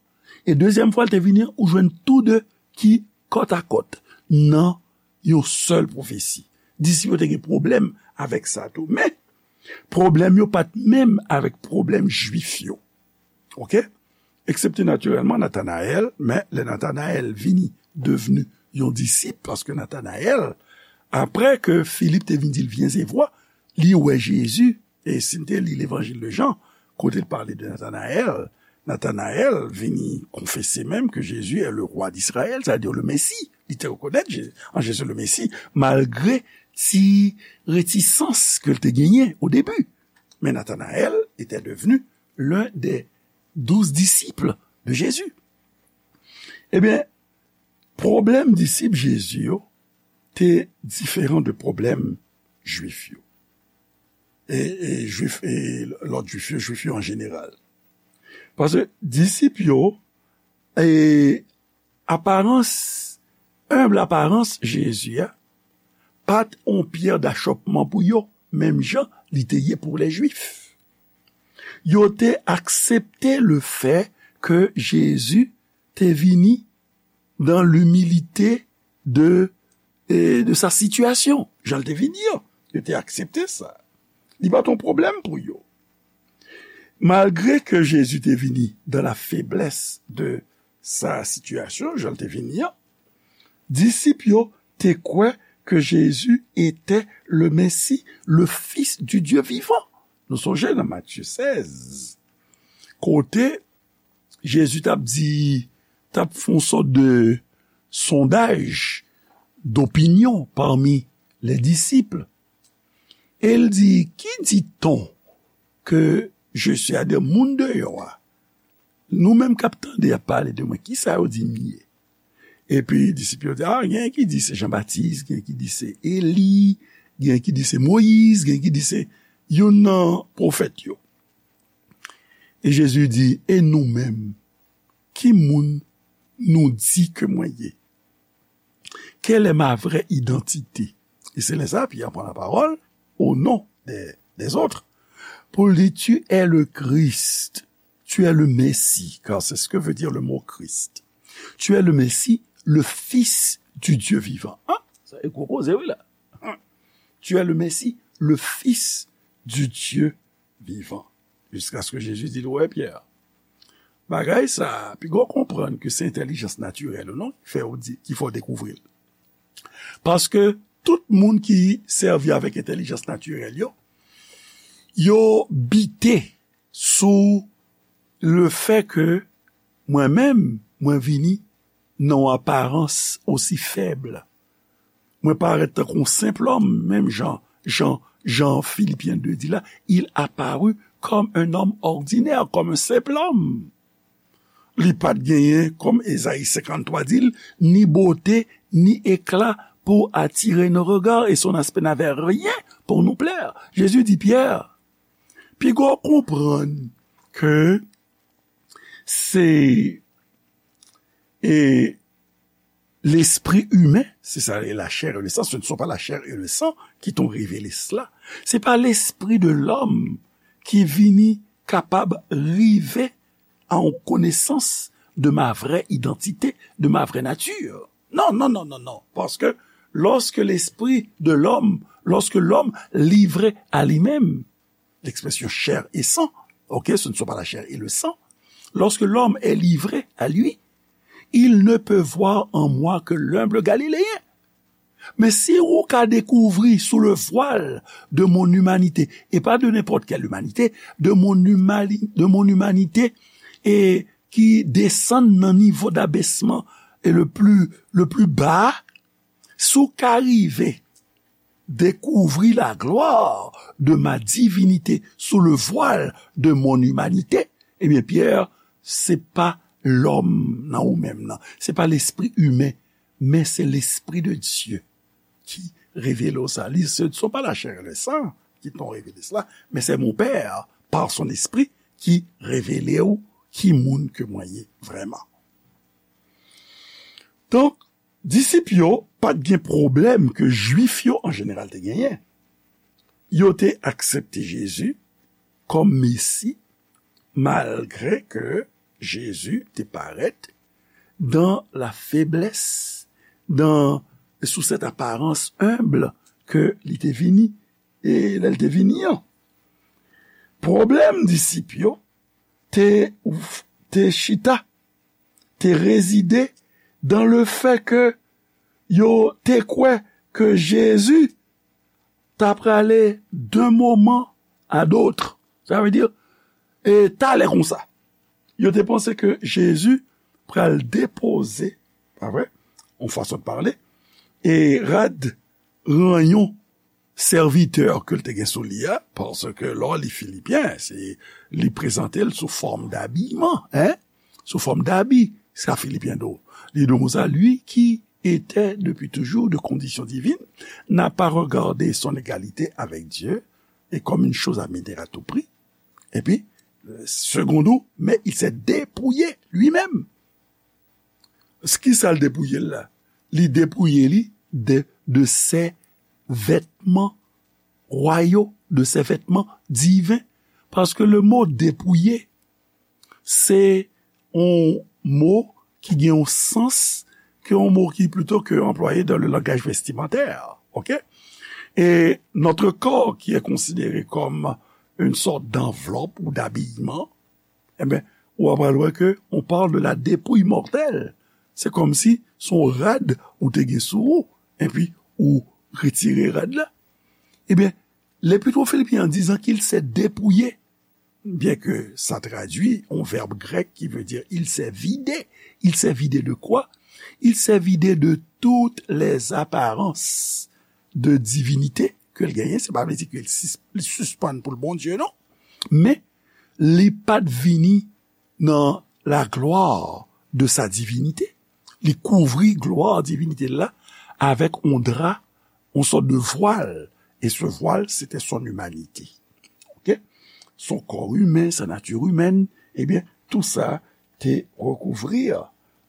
e dezyèm fwa l te vini an, ou jwenn tou de ki kòt a kòt nan yon sèl pwofesi. Disip yo te gen pwoblèm avèk sa tou. Men, pwoblèm yo pa t menm avèk pwoblèm Jwif yo. Oke? Eksepte natirèlman Natanayèl, men lè Natanayèl vini devni yon disip, paske Natanayèl, apre ke Filip te vin di l, "Viens et vois," li wè Jezi, e si n te li Levanjil de Jan, kote l pale de Natanayèl, Natanayèl vini konfese menm ke Jezi est le roi d'Israël, c'est-à-dire le Messie. Li te rekonèt Je-, an Jezi le Messie, malgre ti retisans ke l te genyen o debi. Men Natanayèl était devenu l'un des douze disciples de Jésus. Ebyen, pwoblèm disip Jezi yo te diferan de pwoblèm Jwif yo. E, e Jwif, e lòt Jwif yo, Jwif yo an jeneral. Paske disip yo, e aparans, enb aparans Jezi a, pa t on pyè dachòpman pou yo, menm jan li te ye pou lè Jwif. Yo te aksepte le fè ke Jezi te vini dans l'humilité de, e, de sa situation. Jan l te vini an, yo te aksepte sa. Li pa t on pwoblèm pou yo. Malgre ke Jezi te vini dans la faiblesse de sa situation, jan l te vini an, disip yo te kwè ke Jezi etè le Mesi, le Fis di Dye vivan. Nou sonje nan Matye sèz, kote Jezi t ap di, t ap fè yon sòt de sondaj dopinyon pami le disip. E l di, ki dit-on que je suis? Sètadi moun deyò a, nou menm k ap tande ap pale de mwen, kisa yo di m ye? Epi disip yo di, a, gen ki di se Jan Batis, gen ki di se Eli, gen ki di se Moyiz, gen ki di se youn nan pwofèt yo. E Jezi di, e nou menm, ki moun nou di ke mwen ye? Quelle est ma vraie identité? E se lè sa Pyè pran lapawòl o non de, des autres pou l di, tu es le Christ, tu es le Messie, car c'est ce que veut dire le mot Christ. Tu es le Messie, le Fils du Dieu vivant. Hein? Sa e gwo koze wi la. Hein? Tu es le Messie, le Fils du Dieu vivant. Jusqu'à ce que Jésus dit, ouais, Pierre. Bagay sa, pi gwo konprann ke se entèlijans natirèl ou non ki fè ou di, ki fè w dekouvri l. Paske tout moun ki sèvi avèk entèlijans natirèl yo, yo bite sou le fè ke mwen menm, mwen vini nan yon aparans osi fèb. Mwen parèt tankou yon senp lòm, menm jan, jan, jan Filipyen de di la, il apparut comme un homme ordinaire, comme un simple homme. Li pa t genyen, kòm Ezayi senkanntwa di l, ni bote, ni ekla pou atire nos regards, et son aspect n'avait rien pour nous plaire. Jezi di Pyè, pi gwo konprann ke se, e, lespri imen, c'est ça, et la chair et le sang, ce ne sont pas la chair et le sang qui t'ont révélé cela. Se pa lespri de lòm ki vini kapab rive a yon konesans de ma vraie identité, de ma vraie nature. Non, non, non, non, non. Paske lòske lespri de lòm, lòske lòm livre a li menm, l'expression chair et sang, ok, ce ne sont pas la chair et le sang. Lorsque l'homme est livré à lui, il ne peut voir en moi que l'humble Galiléen. Men si ou ka dekouvri sous le voile de mon humanité, et pas de n'importe quelle humanité, de mon humani-, de mon humanité, et ki desann nan nivo d'abèsman e le plus, le plus bas, si w ka rive découvrir la gloire de ma divinité sous le voile de mon humanité, ebyen, Pyè, se pa lòm nan ou menm nan, se pa lespri imen, men se lespri de Dye ki revele w sa. Li, ce ne sont pas la chair et le sang qui t'ont révélé cela, mais c'est mon Père, par son Esprit, qui révèle ou ki moun ke mwen ye vrèman. Donk, disip yo pa t gen pwoblèm ke Jwif yo an jeneral te genyen. Yo te aksepte Jezi kòm Mesi, malgre ke Jezi te parèt dans la faiblesse, dans, sous cette apparence humble ke li te vini, e lè l te vini an. Pwoblèm disip yo te, te chita, te rezide dans le fait que yo te kwè ke Jezi ta prale d'un moment à d'autre. Sa vle di, e talè konsa. Yo te panse ke Jezi pral depoze, pa vre, yon fason de pale, e rad ranyon sèvitè ke l te gen sou li a, paske lè w li Filipyen, se, li prezante l sou fòm dabiyman, en? Sou fòm dabi, sa Filipyen di w. Li di w konsa, lui qui était depuis toujours de condition divine, n'a pas regardé son égalité avec Dieu et comme une chose à mener à tout prix. Epi, segonn ou, mais il s'est dépouillé lui-même. Kisa l depouye l la? Li depouye li de, de ses vêtements royaux, de ses vêtements divins. Paske le mo depouye, se yon mo ki gen yon sans ke yon mo ki plito ke anplwaye dans le langage vestimentaire. Ok? Et notre corps, qui est considéré comme une sorte d'enveloppe ou d'habillement, ebyen, ou ap pral wè ke on parle de la dépouille mortelle. Se kòmsi se yon rad ou te gen sou ou, epi ou retire rad la. Ebyen, L'Épître aux Philippiens, en disant qu'il s'est dépouillé, bien que ça traduit un verbe grec qui veut dire il s'est vidé. Il s'est vidé de quoi? Il s'est vidé de toutes les apparences de divinité ke l genyen. Se pa vle di ke l sis-, li sispann pou l Bondye, non. Men, li pa t vini nan la gloire de sa divinité. Li kouvri glwa divinite l la avèk yon dra, yon sòt de vwal. E se vwal, se te son imanite. Ok? Son kò imen, sa nati imèn, ebyen, tou sa te rekouvri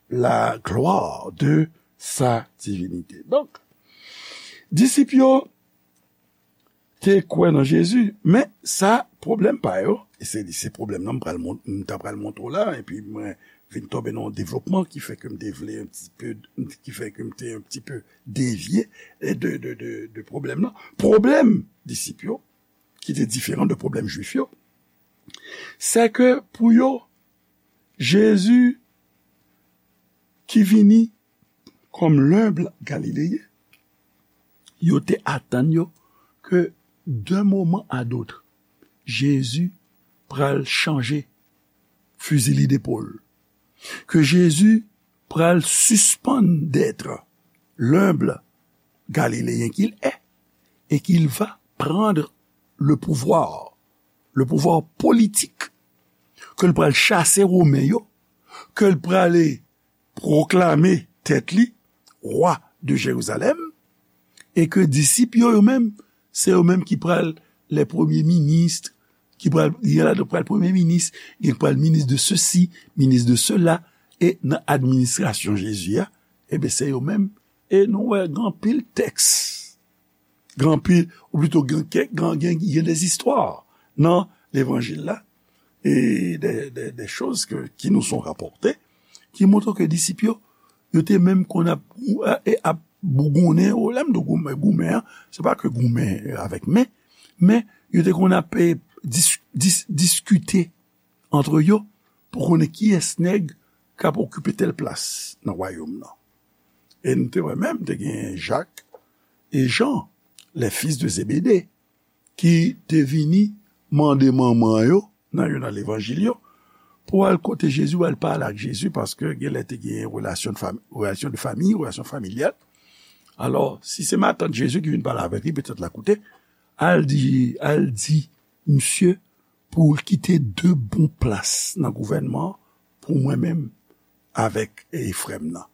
la gloire de sa divinité. Donk, disip yo te kwè nan Jezi, men sa pwoblèm pa yo, e se, se pwoblèm nan m pral mon-, m ta pral montre w la, epi mwen vin tonbe nan yon devlopman ki fè ke m te vle un petit peu, ki fè ke m te un petit peu devye de, de, de, de pwoblèm nan. Pwoblèm disip yo, ki te diferan de pwoblèm jwif yo, se ke pou yo, Jezi ki vini kòm lenb Galileyen, yo te atann yo ke d'un moment à l'autre, Jezi pral chanje fizi li depòl, ke Jezi pral sispann d'être l'humble Galiléen qu'il est et qu'il va prendre le pouvoir, le pouvoir politique, ke l pral chase Women yo, ke l prale pwoklame tèt li wa de Jerizalèm, e ke disip yo, yo menm, se yo menm ki pral lè premye minis, ki pral, gen ladan pral premye minis, gen pral minis de sesi, minis de sela, e nan administrasyon Jezi a, ebyen, se yo menm. E nou wè gen anpil tèks, gen anpil, ou plito gen kèk, gen, gen, gen des istwa nan levanjil la, e de, de, de choz ke, ki nous sont rapportées, ki montre ke disip yo, yo te menm konn ap, e, ap bougonnen, o, lè m di goumen, goumen an, se pa ke goumen avèk men, men yo te konn ap, e, dis-, dis-, diskite antre yo pou konnen kiyès nèg k ap okipe tèl plas nan wayòm nan. E nou te wè menm, te gen Jak e Jan, les fils de Zébédée, ki te vini mande manman yo, nan youn nan levanjil yo, pou al kote Jezi, pou al pale ak Jezi, paske genlè te gen relasyon de fami, relasyon de fami, relasyon familyal. Alò, si se matant Jezi ki vin pale avèk li, petèt l a koute, al di, al di misye pou l kite de bon plas nan gouvènman an pou mwen menm avèk, e, frè m nan.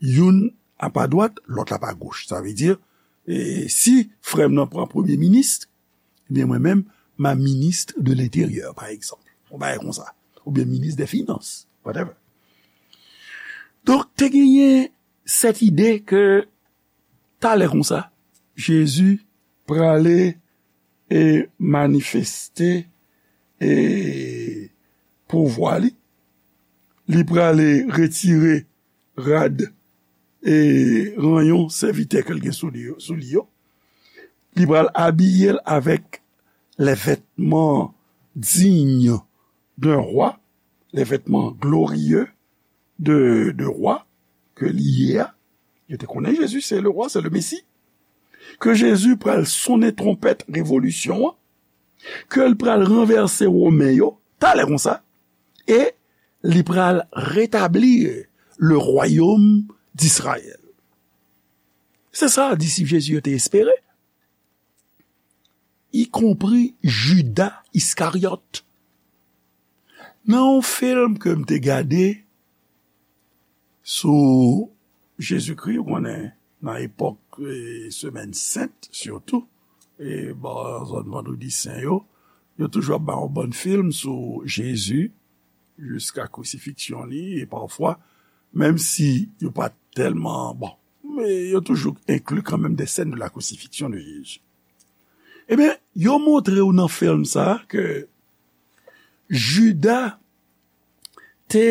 Youn ap adwat, lòt la ap agoch. Sa vle di, e, si frè m nan pran premye minis, ebyen, mwen menm, m a ministre de l'Intérieur, pa egzanp. Yon bagay konsa. Oubyen minis dè finans, whatever. Donk, te genyen sèt ide ke talè konsa, Jezi prale, e, manifeste, e, pouvwa li. Li prale retire rad e ranyon sèvitè ke l gen sou li yo, sou li yo. Li pral abiye l avèk les vêtements dignes d'un roi, les vêtements glorieux de, de roi ke li ye a. Yo te konnen Jezi se le roi, se le Messie. Ke Jezi pral sonnen twonpèt revolisyon an, ke l pral ranvèse Women yo, talè konsa, e li pral retablir le royaume d'Israël. Se sa disip Jezi yo te espere, ikonpri Jida Iskaryòt. Nan yon fim ke m te gade sou Jezikri, ou konnen, nan epòk, e, Semèn Sent, sitou, e, bò zòn Vandredi Sen yo, yo toujou ap bay yon bann fim sou Jezi, jiska krisifiksyon li, e pafwa, menm si yo pa tèlman, bon, men yo toujou enkli kanmenm des scènes de la crucifixion de Jésus. Ebyen, yo montre w nan fim sa a ke Jida te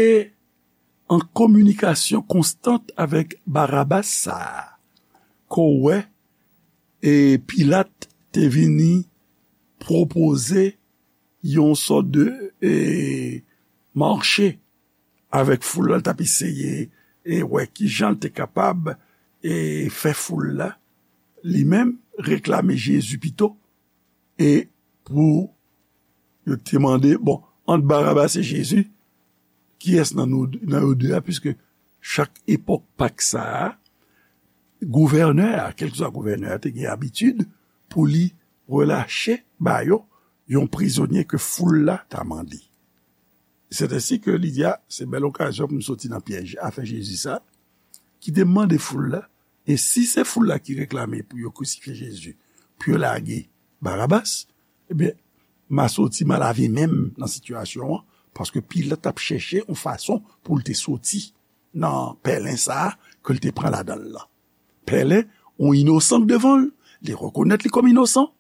an kominikasyon konstant avèk Barabas sa a, ke w wè, e Pilat te vini pwopoze yon sòt de, e, mache avèk foul la, l t ap eseye, e, wè kijan l te kapab, e fè foul la, li menm, reklame Jezi pito, e pou yo te mande, bon, ant Barabas e Jezi, kiyès nan nou, nan yo de a, piske chak epòk Pak sa a, gouvènè a, kèlkeswa gouvènè a, te gen abitid pou li relache ba yo yon prizonye ke foul la ta mande. Se ensi ke li di, a, se bèl okazyon pou m soti nan pyèj afè Jezi sa, ki te mande foul la, e si se foul la ki reklame pou yo krisifye Jezi, pou yo lage Barabas, ebyen, m a soti, m a lave men m nan sitiyasyon an, paske Pilat t ap chèche yon fason pou l te soti nan pèlen sa a ke l te pran ladan l lan. Pèlen, yon inosan k devan l, li rekonèt li kòm inosan.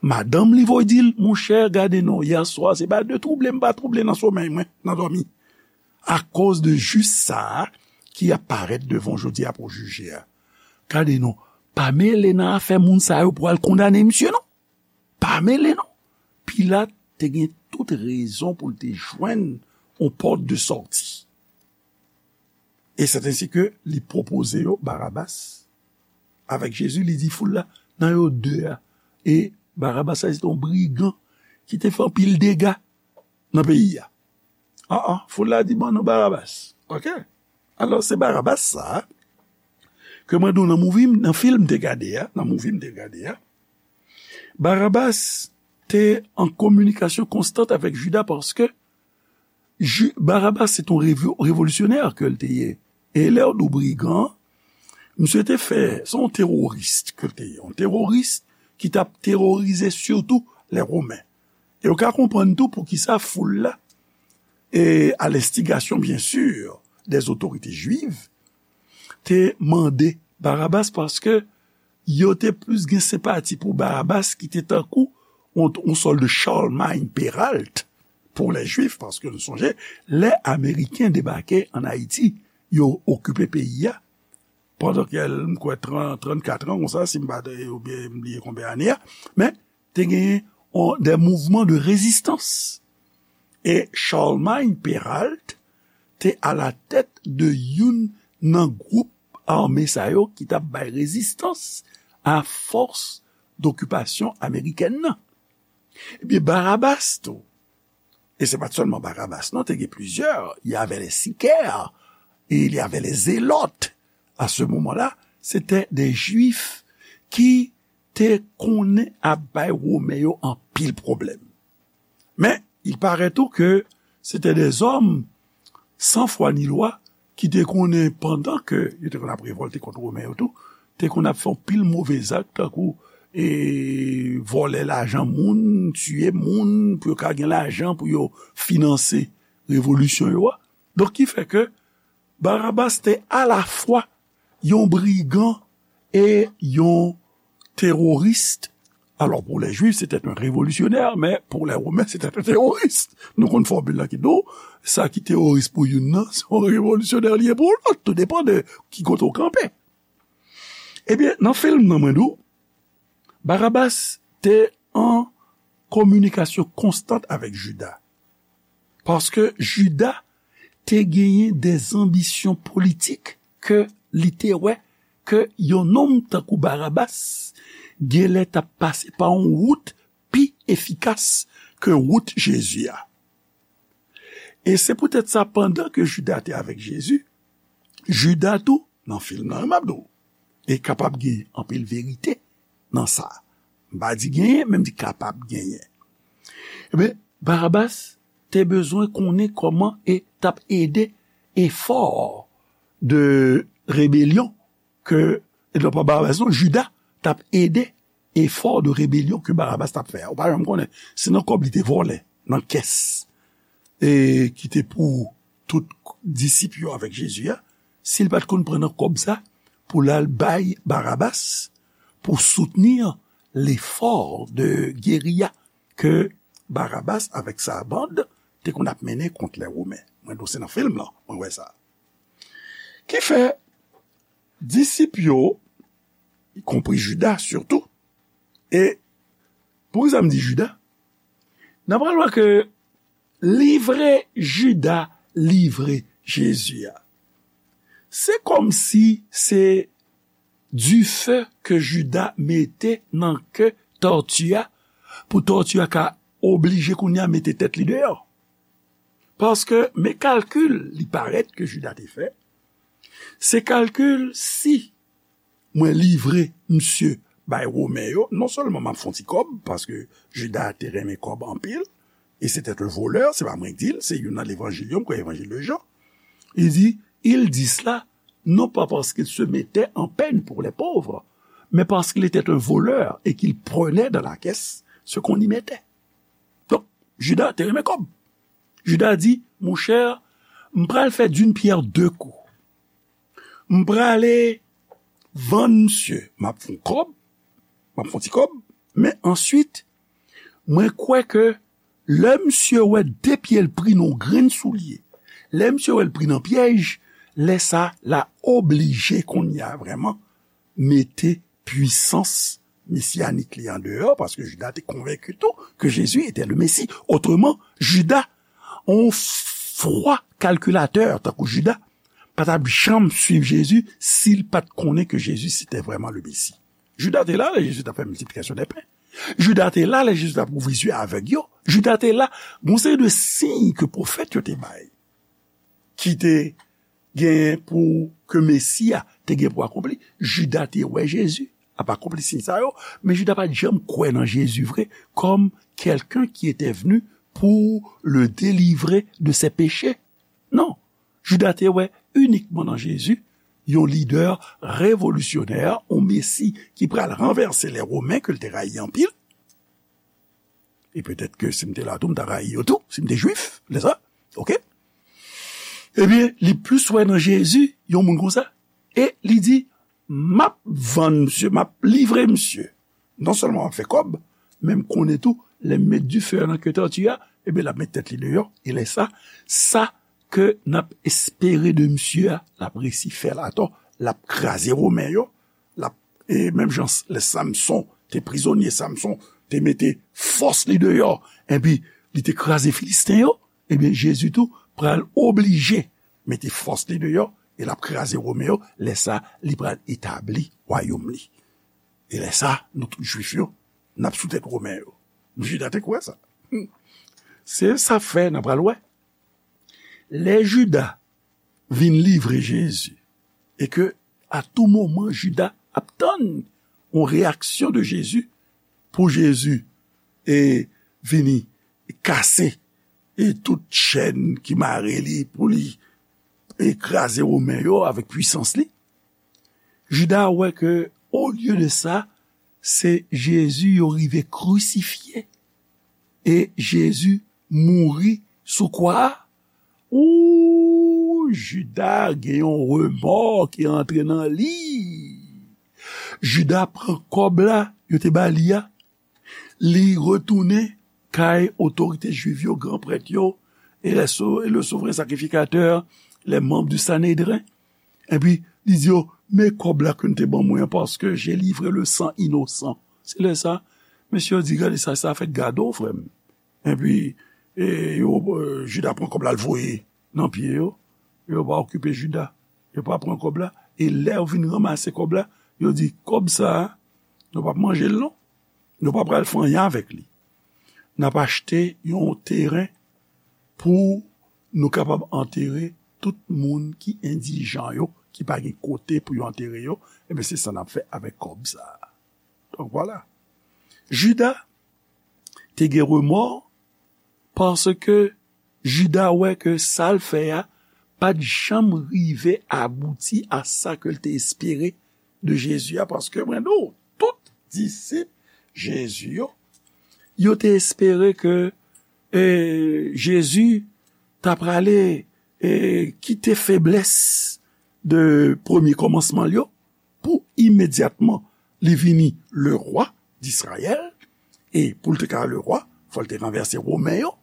Madanm li voye di l, monchè, gade non, yè swa, se pa de twouble m pa twouble nan somèy mwen, nan dòmi. Akoz de jis sa a ki ap parèt devan w jodi a pou w jije a. Gade non, pa mele nan afè moun sa yo pou al kondane misye non. Pa mele non. Pilat te gen tout rezon pou l te jwenn yon pòt de sòti. E se ensi ke li pwopoze yo Barabas avèk Jezi, li di foul la, nan yo de a. E Barabas la, se te yon brigan ki te fè anpil dega nan peyi a. An an, foul la di, ban nou Barabas. Oke? Alò, se Barabas sa a ke mwen di w nan movie m, nan fim m te gade a, nan movie m te gade a. Barabas te an kominikasyon konstant avèk Jida paske Ju-, Barabas se t on revo-, revolisyonè ke l te ye. E lè w di w brigan, misye te fè, se yon teworis ke l te ye. Yon teworis ki t ap teworize sitou lè Women. E w ka konprann tou poukisa foul la, e a lenstigasyon, byen si, dè otorite jwiv, te mande Barabas paske yo te plis gen senpati pou Barabas ki te tankou yon, yon sòt de Charlemagne Péralte pou lè jwif, paske nou sonje, lè Ameriken debake ann Ayiti, yo okipe peyi a, pandan ke, m kwè, trant, trannkat an, konsa, si m pa, oubyen m bliye konbyen ane a, men te genyen on, de mouvman de rezistans. E Charlemagne Péralte te alatèt de youn nan gwoup ame sa yo ki t ap bay rezistans a fòs dokipasyon amerikèn nan. Ebyen, Barabas tou, e se pa t sèlman Barabas, non, te gen plizyè, il y avait les sicaires, et il y avait les zélotes. À ce moment-là, c'était des Juifs qui te konnen ap bay Women yo anpil pwoblèm. Men, il paraît tou ke se te de zòm san fwa ni lwa ki te konnen pandan ke yo te konn ap revòlte kont Women yo tou, te konn ap fè anpil move zak, tankou, e, vòlè lajan moun, tiye moun, pou yo ka gen lajan pou yo finanse revolisyon yo a. Donk, ki fè ke Barabas te alafwa yon brigan e yon teworis. Alò, pou lè jwif, se te yon revolisyonè, men pou lè women, se te yon teworis. Nou konn fòmil la ki di w, sa ki teworis pou youn nan, se yon revolisyonè li ye pou lòt. Tou depann de ki kote w kanpe. Ebyen, nan fim nan, mwen di w, Barabas te an kominikasyon konstant avèk Jida. Paske Jida te genyen de zanbisyon politik ke li te wè ke yon nonm tankou Barabas genlè t ap pase pa yon wout pi efikas ke wout Jezi a. E se poutèt sa, pandan ke Jida te avèk Jezi, Jida tou, nan fim nan, m ap di w, e kapab gen anpil verite nan sa. M pa di genyen, men m di kapab genyen. Ebyen, Barabas te bezwen konnen kòman e t ap ede efò de rebelyon ke, e non pa Barabas, non, Jida t ap ede efò de rebelyon ke Barabas t ap fè a. Ou pa janm konnen. Se nan kòb li te vòlè, nan kès, e ki te pou tout disip yo avèk Jezi a, si l pa t konn pran nan kòb sa pou l al bay Barabas pou soutenir lefò de geriya ke Barabas avèk sa bann te konn ap mennen kont lè Women. Mwen di w se nan fim lan, mwen wè sa. Ki fè, disip yo, y konpri Jida sitou, e poukisa m di Jida? N ap pral wè ke livre Jida livre Jezi a, se kòmsi se dife ke Jida mete nan ke tòti a, pou tòti a ka oblije kounye a mete tèt li deyò. Paske, men kalkil li parèt ke Jida te fè, se kalkil si mwen livre misye bay Women yo, non sèlman m ap fè yon ti kòb, paske Jida te renmen kòb anpil, et c'était un voleur, se pa mwen k di l, se youn nan levanjil yo, m kwè evanjil de Jan. Il dit, il dit cela, non pas parce qu'il se mettait en peine pour les pauvres, mais parce qu'il était un voleur et qu'il prenait dans la caisse ce qu'on y mettait. Donk, Jida te renmen kòb. Jida di, monchè, m pral fè d'une pierre deux coups. M prale vann misye, m ap fè yon kòb, m ap fè yon ti kòb, men answit, mwen kwè ke lè misye wè de pye l pri nan yon grenn soulye, lè misye wè l pri nan pyèj, lè sa l a oblije kounye a vrèman mete pwisans mesiyanik li andeyò, paske Jida te konvenki tou ke Jezi etè le Mesi. Otreman, Jida, yon fwa kalkilatè tankou Jida, pa t ap janm swiv Jezi si l pa t konnen ke Jezi se te vrèman le Mesi. Jida te la lè Jezi t ap fè miltiplikasyon dè pen. Jida te la lè Jezi t ap ouvri zye avèg yo. Jida te la, gon seri de siy ke pwofèt yo te bay, ki te genyen pou ke Mesi a te gen pou akonpli. Jida te wè Jezi ap akonpli siy sa yo, men Jida pa t janm kwè nan Jezi vre, comme quelqu'un qui était venu pour le délivrer de ses péchés. Non, Jida te wè inikman nan Jezi yon lidè revolisyonè, yon Mesi ki pral ranvèse lè Women ke l te rayi anpil. E petèt ke si m te la tou, m ta rayi yo tou, si m te jwif, lè sa. Oke? Ebyen, li plis wè nan Jezi yon moun konsa. E li di, m ap vann misye, m ap livre misye. Non sèlman m ap fè kòb, men m konnen tou, lè m met dife nan ke tòti a, ebyen, l ap met tèt li deyò. E lè sa, sa ke n ap espere de misye a, l ap resi fè l atò, l ap kraze Women yo, l ap, e menm jan lè Samson te prizonye, Samson te mete fòs li deyò, epi li te kraze Filisten yo, ebyen, Jezi tou pral oblije mete fòs li deyò, e l ap kraze Women yo, lè sa, li pral etabli wayòm li. E lè sa, nou tout jwif yo, n ap sou tèt Women yo. Jida te kwè sa. Se sa fè, n a pral wè. Lè Jida vin livre Jezi, e ke a tou moman Jida ap tann yon reyaksyon de Jezi, pou Jezi e vini kase e tout chèn ki mare li, pou li e kraze Women yo avèk pwisans li. Jida wè ke, olye de sa, se Jezi yo rive krisifye. E Jezi mouri sou kwa a. Ou, Jida gen yon remò ki antre nan li. Jida pran kòb la yo te ba li a. Li retounen kay otorite jwiv yo, gran prèt yo, e le so-, e le souvren sakrifikatè, les membres du Sanhédrin. Epi, li di yo, men kòb la ke n te ban mwen an, paske j'ai livré le sang innocent. Se lè sa, mesye yo di, gade sa, sa fèt gade w, frè m. Epi, e, yo, e, Jida pran kòb la, l voye nan pye yo. Yo pa okipe Jida. Yo pa pran kòb la. E lè yo vin ranmase kòb la, yo di, kòb sa a, nou p ap manje l non. Nou pa pral fè anyen avèk li. N ap achte yon teren pou nou kapab antere tout moun ki endijan yo, ki pa gen kote pou yo antere yo. Ebyen, se sa n ap fè avèk kòb sa a. Donk, vwala. Jida te gen remò paske Jida wè ke sa l fè a pa t janm rive abouti a sa ke l te espere de Jezi a, paske mwen di w, tout disip Jezi yo, yo te espere ke, e, Jezi ta prale, e, kite feblès de premye kòmansman l yo, pou imedyatman li vini le rwa d'Izrayèl, e pou l te ka le rwa, fò l te ranvèse Women yo,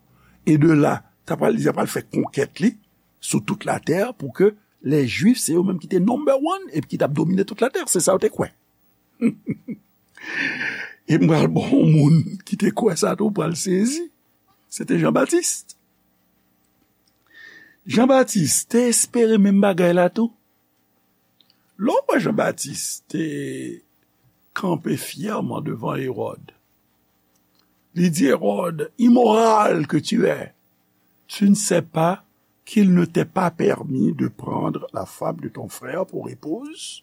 e de la, ta pral, li ta pral fè konkèt li sou tout latè pou ke lè Jwif, se yo menm ki te number one epi ki t ap domine tout latè. Se sa yo te kwè. E m pral ba w yon moun ki te kwè sa tou, w pral sezi. Se te Jan Batis. Jan Batis te espere menm bagay la tou. Lè w wè Jan Batis te kanpe fyèman devan Ewòd, li di Ewòd, immoral que tu es, tu ne sais pas qu'il ne t'est pas permis de prendre la femme de ton frère pour épouse?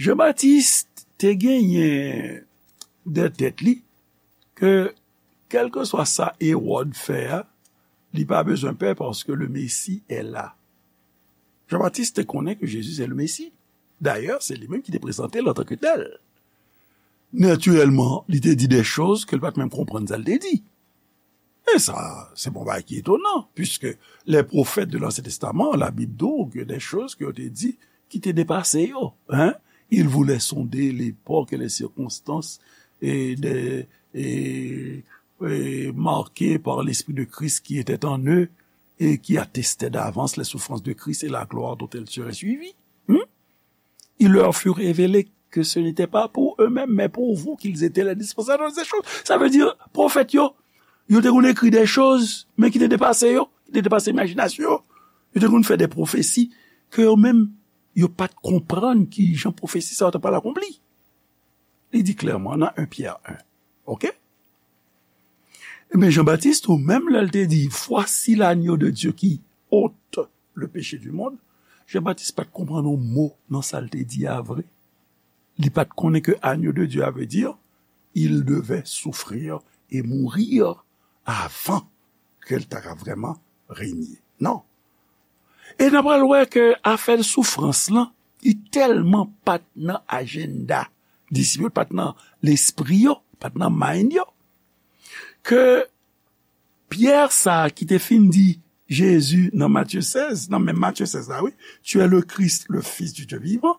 Jan Batis te genyen nan tèt li ke kèlkeswa sa Ewòd fè a, li pa bezwen pè paske le Messie est là. Jan Batis te konnen ke Jezi se le Messie. Dayè, se li menm ki te prezante l antanke tèl. Natirèlman, li te di de choz ke l pa t menm konprann sa l te di. E sa, se pa yon bagay ki etonan, puisque les prophètes de l'Ancien Testament, Labib di w gen de choz ke yo te di ki te depase yo. Hein? Ils voulaient sonder l'époque et les circonstances et des, et, et marquées par l'Esprit de Christ qui était en eux et qui attestaient d'avance les souffrances de Christ et la gloire dont elles seraient suivies. Hmm? Il leur fut révélé que ce n'était pas pour eux-mêmes, mais pour vous qu'ils étaient les dispensateurs de ces choses. Sa vle di, pwofèt yo, yo te konn ekri de choz, men ki te depase yo, ki te depase imajinasyon yo. Yo te konn fè de pwofesi ke yo menm, yo pa t konprann ki jan pwofesi sa yo ta pral akonpli. Li di klèman nan en Pyè en. Oke? Ebyen, Jan Batis tou, menm lè l te di, Voici l'agneau de Dieu qui ôte le péché du monde, Jan Batis pa t konprann yon mo nan sa l te di a vre. Li pa t konnen ke agneau de Dieu a vle di, il devait souffrir et mourir avant ke l ta ka vrèman renye. Non. E n a pral wè ke afè soufrans lan, li tèlman pa t nan ajanda disip yo, li pa t nan lespri yo, li pa t nan mind yo, ke Pyè sa a ki te fin di Jezi nan Matye sèz, nan menm Matye sèz la, wi, Tu es le Christ, le Fils du Dieu vivant.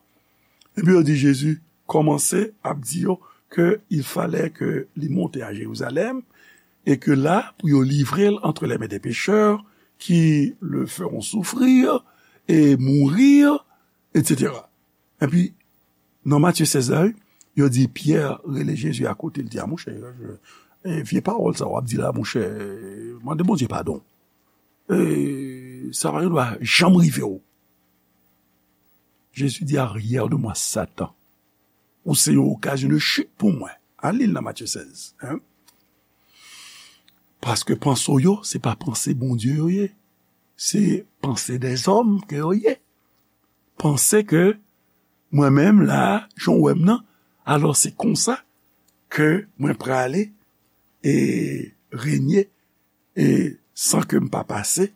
Epi yo di Jezi kòmanse ap di yo ke il fallait ke li monte a Jerizalèm e ke la, pou yo livre l entre les mains des pécheurs qui le feront souffrir et mourir, et cetera. Epi, nan Matye sèz la, wi, yo di Pyè rele Jezi akote, l di, A, monchè, e, vye pawòl sa w ap di la, monchè, mande Bondye padon. E, sa pa gen dwa janm rive w. Jezi di, Arrière de moi, Satan. Ou se yon okazyon de chit pou mwen. A li l nan Matye sèz. Hein? Paske panse w yo, se pa panse Bondye yo ye. Se panse dèzòm ke yo ye. Panse ke mwen menm la, jan w wè m nan, alò se konsa ke mwen prale e renye e san ke m pa pase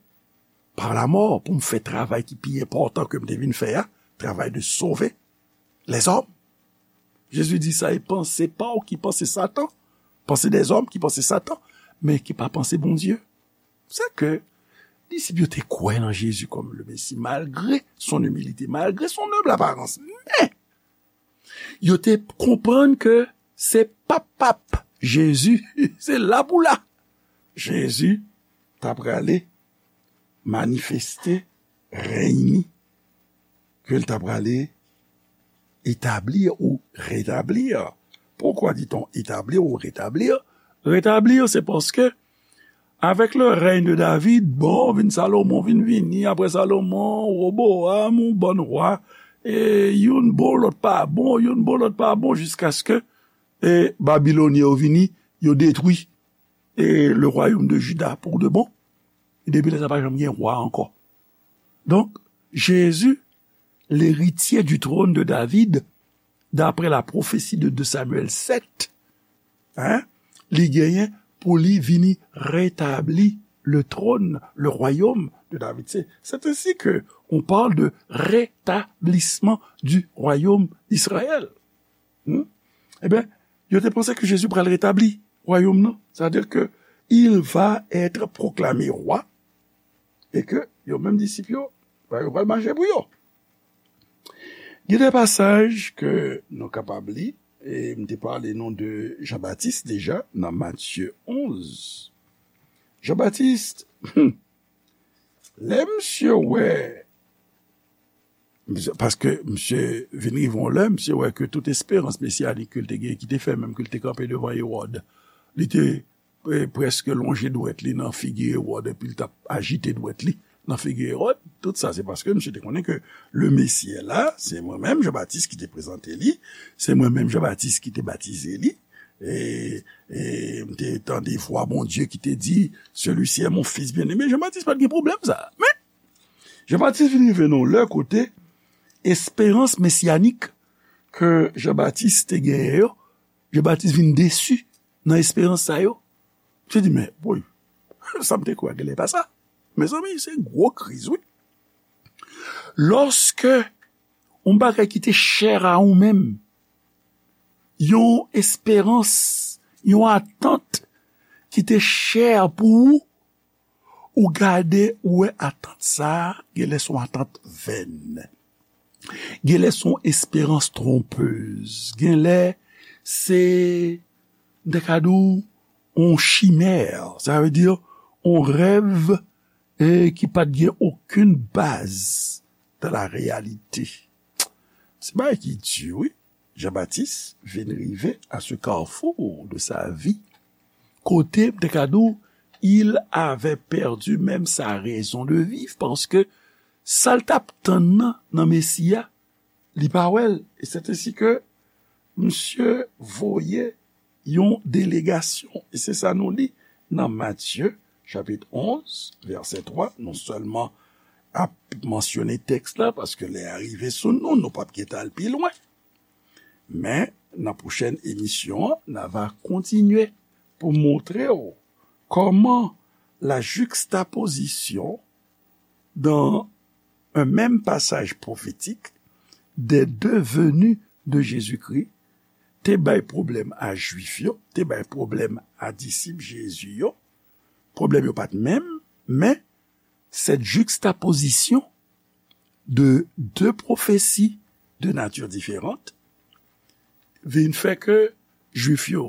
pa lamò pou m fè travay ki pi enpòtan ke m te vin fè a, travay de sove lèzòm. Jezi di sa e panse pa w ki panse Satan, panse dèzòm ki panse Satan, men ki pa panse Bondye. Se ke disip yo te kwè nan Jezi kòm le Mesi, malgre son imilite, malgre son nonb aparans. Men, yo te konprann ke se pa pap Jezi, se la pou la. Jezi ta prale manifeste rèy ni, ke l ta prale etabli ou retabli. Pourquoi dit-on établir ou rétablir? Rétablir, se paske avec le règne de David, bon, vin Salomon, vin vini, apre Salomon, Roboam, yon bann wa, e youn bon, lòt pa bon, youn bon, lòt pa bon, jiskaske, e, Babilonyen yo vini, yo detwi, e, le royaume de Juda pour de bon. E depi lè sa pa janm gen wa ankò. Donk, Jezi, l'héritier du trône de David, d'après la prophétie de deux Samuel sept, hein, li genyen pou li vini retabli le trône, le royaume de David. C'est, c'est ainsi que on parle de rétablissement du royaume d'Israël. Hmm? Ebyen, yo te panse ke Jezi pral retabli wayòm nan. Sa vle di ke il va être proclamé roi e ke yo menm disip yo, ba yo pral mache pou yo. Gen de pasaj ke nou kapab li, e m te pale nou de Jan Batis deja nan Matye onz. Jan Batis, lè misye wè, misye, paske misye vin rive yon lè, misye wè ke tout esperans mesiyanik ke l te gen, ki te fè menm ke l te kanpe devan Ewòd, li te, e, prèske lonje dwèt li nan figi Ewòd, epi l t ap ajite dwèt li, nan figi Ewòd. Tout sa, se paske misye te konnen ke le Messie est là, se mwen menm, Jan Batis, ki te prezante li, se mwen menm, Jan Batis, ki te batize li, e, e m te tande vwa Bondye ki te di, celui-ci est mon fils bien-aimé. Jan Batis pa t gen pwoblèm sa. Men, Jan Batis vin rive nan yon lè kote esperans mesyanik ke Jan Batis te genyen yo, Jan Batis vin desi nan esperans sa yo. Misye di, men, woy, sa m te kwè genlè pa sa. Mezanmi, se gwo kriz, wi. Lòske yon bagay ki te chè a ou menm, yon esperans, yon atant ki te chè pou ou, ou gade, ou wè atant sa a, genlè se yon atant vèn. Genlè se yon esperans twonpez. Genlè se, m te ka di w, yon chimè. Sa vle di, yon rèv, e, ki pa t gen okenn baz dans la réalité. Se bagay ki di, wi. Jean-Baptiste vin rive à ce carrefour de sa vie, kote, m te ka di w, il avait perdu même sa raison de vivre, paske sa l t ap tann nan, nan Mesi a, li pa wè l. E c'est ainsi que misye voye yon delegasyon. E se sa nou li nan Matye, chapit onz, vèsè twa. Non sèlman ap mansyone tèks la, paske lè a rive sou nou, nou p ap gentan al pi lwen. Men, nan pwochèn emisyon an, n a va kontinye pou montre w kòman la juxtaposition dans un même passage prophétique des deux venues de Jésus-Christ te bay pwoblèm a Jwif yo, te bay pwoblèm a disip Jezi yo. Pwoblèm yo pa t menm, men cette juxtaposition de deux prophéties de nature différente vin fè ke Jwif yo,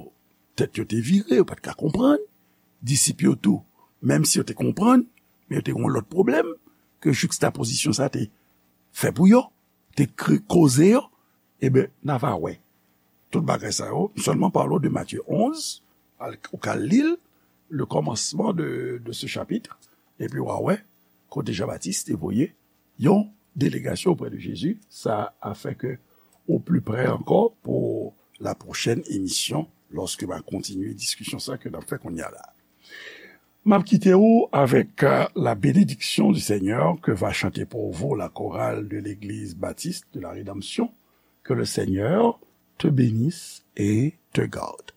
tèt yo te vire, yo pa t ka konprann. Disip yo tou, menm si yo te konprann, men yo te gen yon lòt pwoblèm ke juxtaposition sa te fè pou yo, te kre-, koze yo. Eben, n a va wè. Tout bagay sa yo, m sèlman pale w de Matye onz, al, ou ka li l, le commencement de, de ce chapitre, epi w a wè kote Jean-Baptiste te voye yon delegasyon auprès de Jésus. Ça a fait que au plus près encore pour la prochaine émission, lorsque m a kontinye diskisyon sa ke n ap fè kounye a la. M ap kite w avec, euh, la bénédiction du Seigneur que va chanter pour vous la chorale de l'église baptiste de la Rédemption. Que le Seigneur te bénisse et te garde.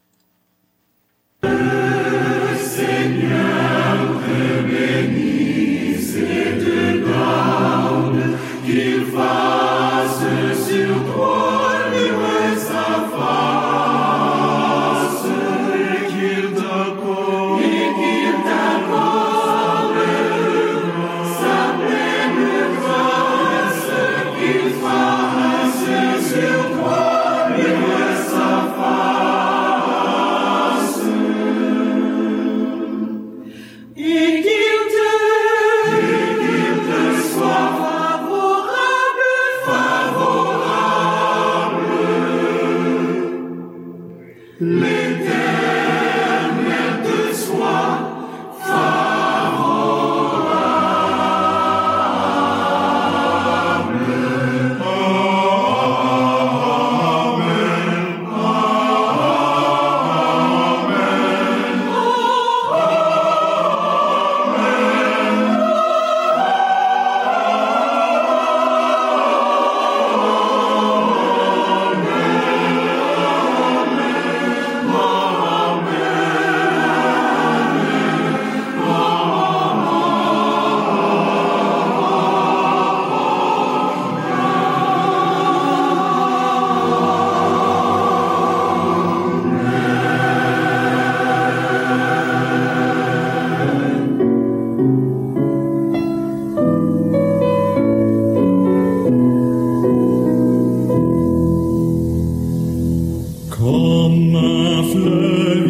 Kòm flèv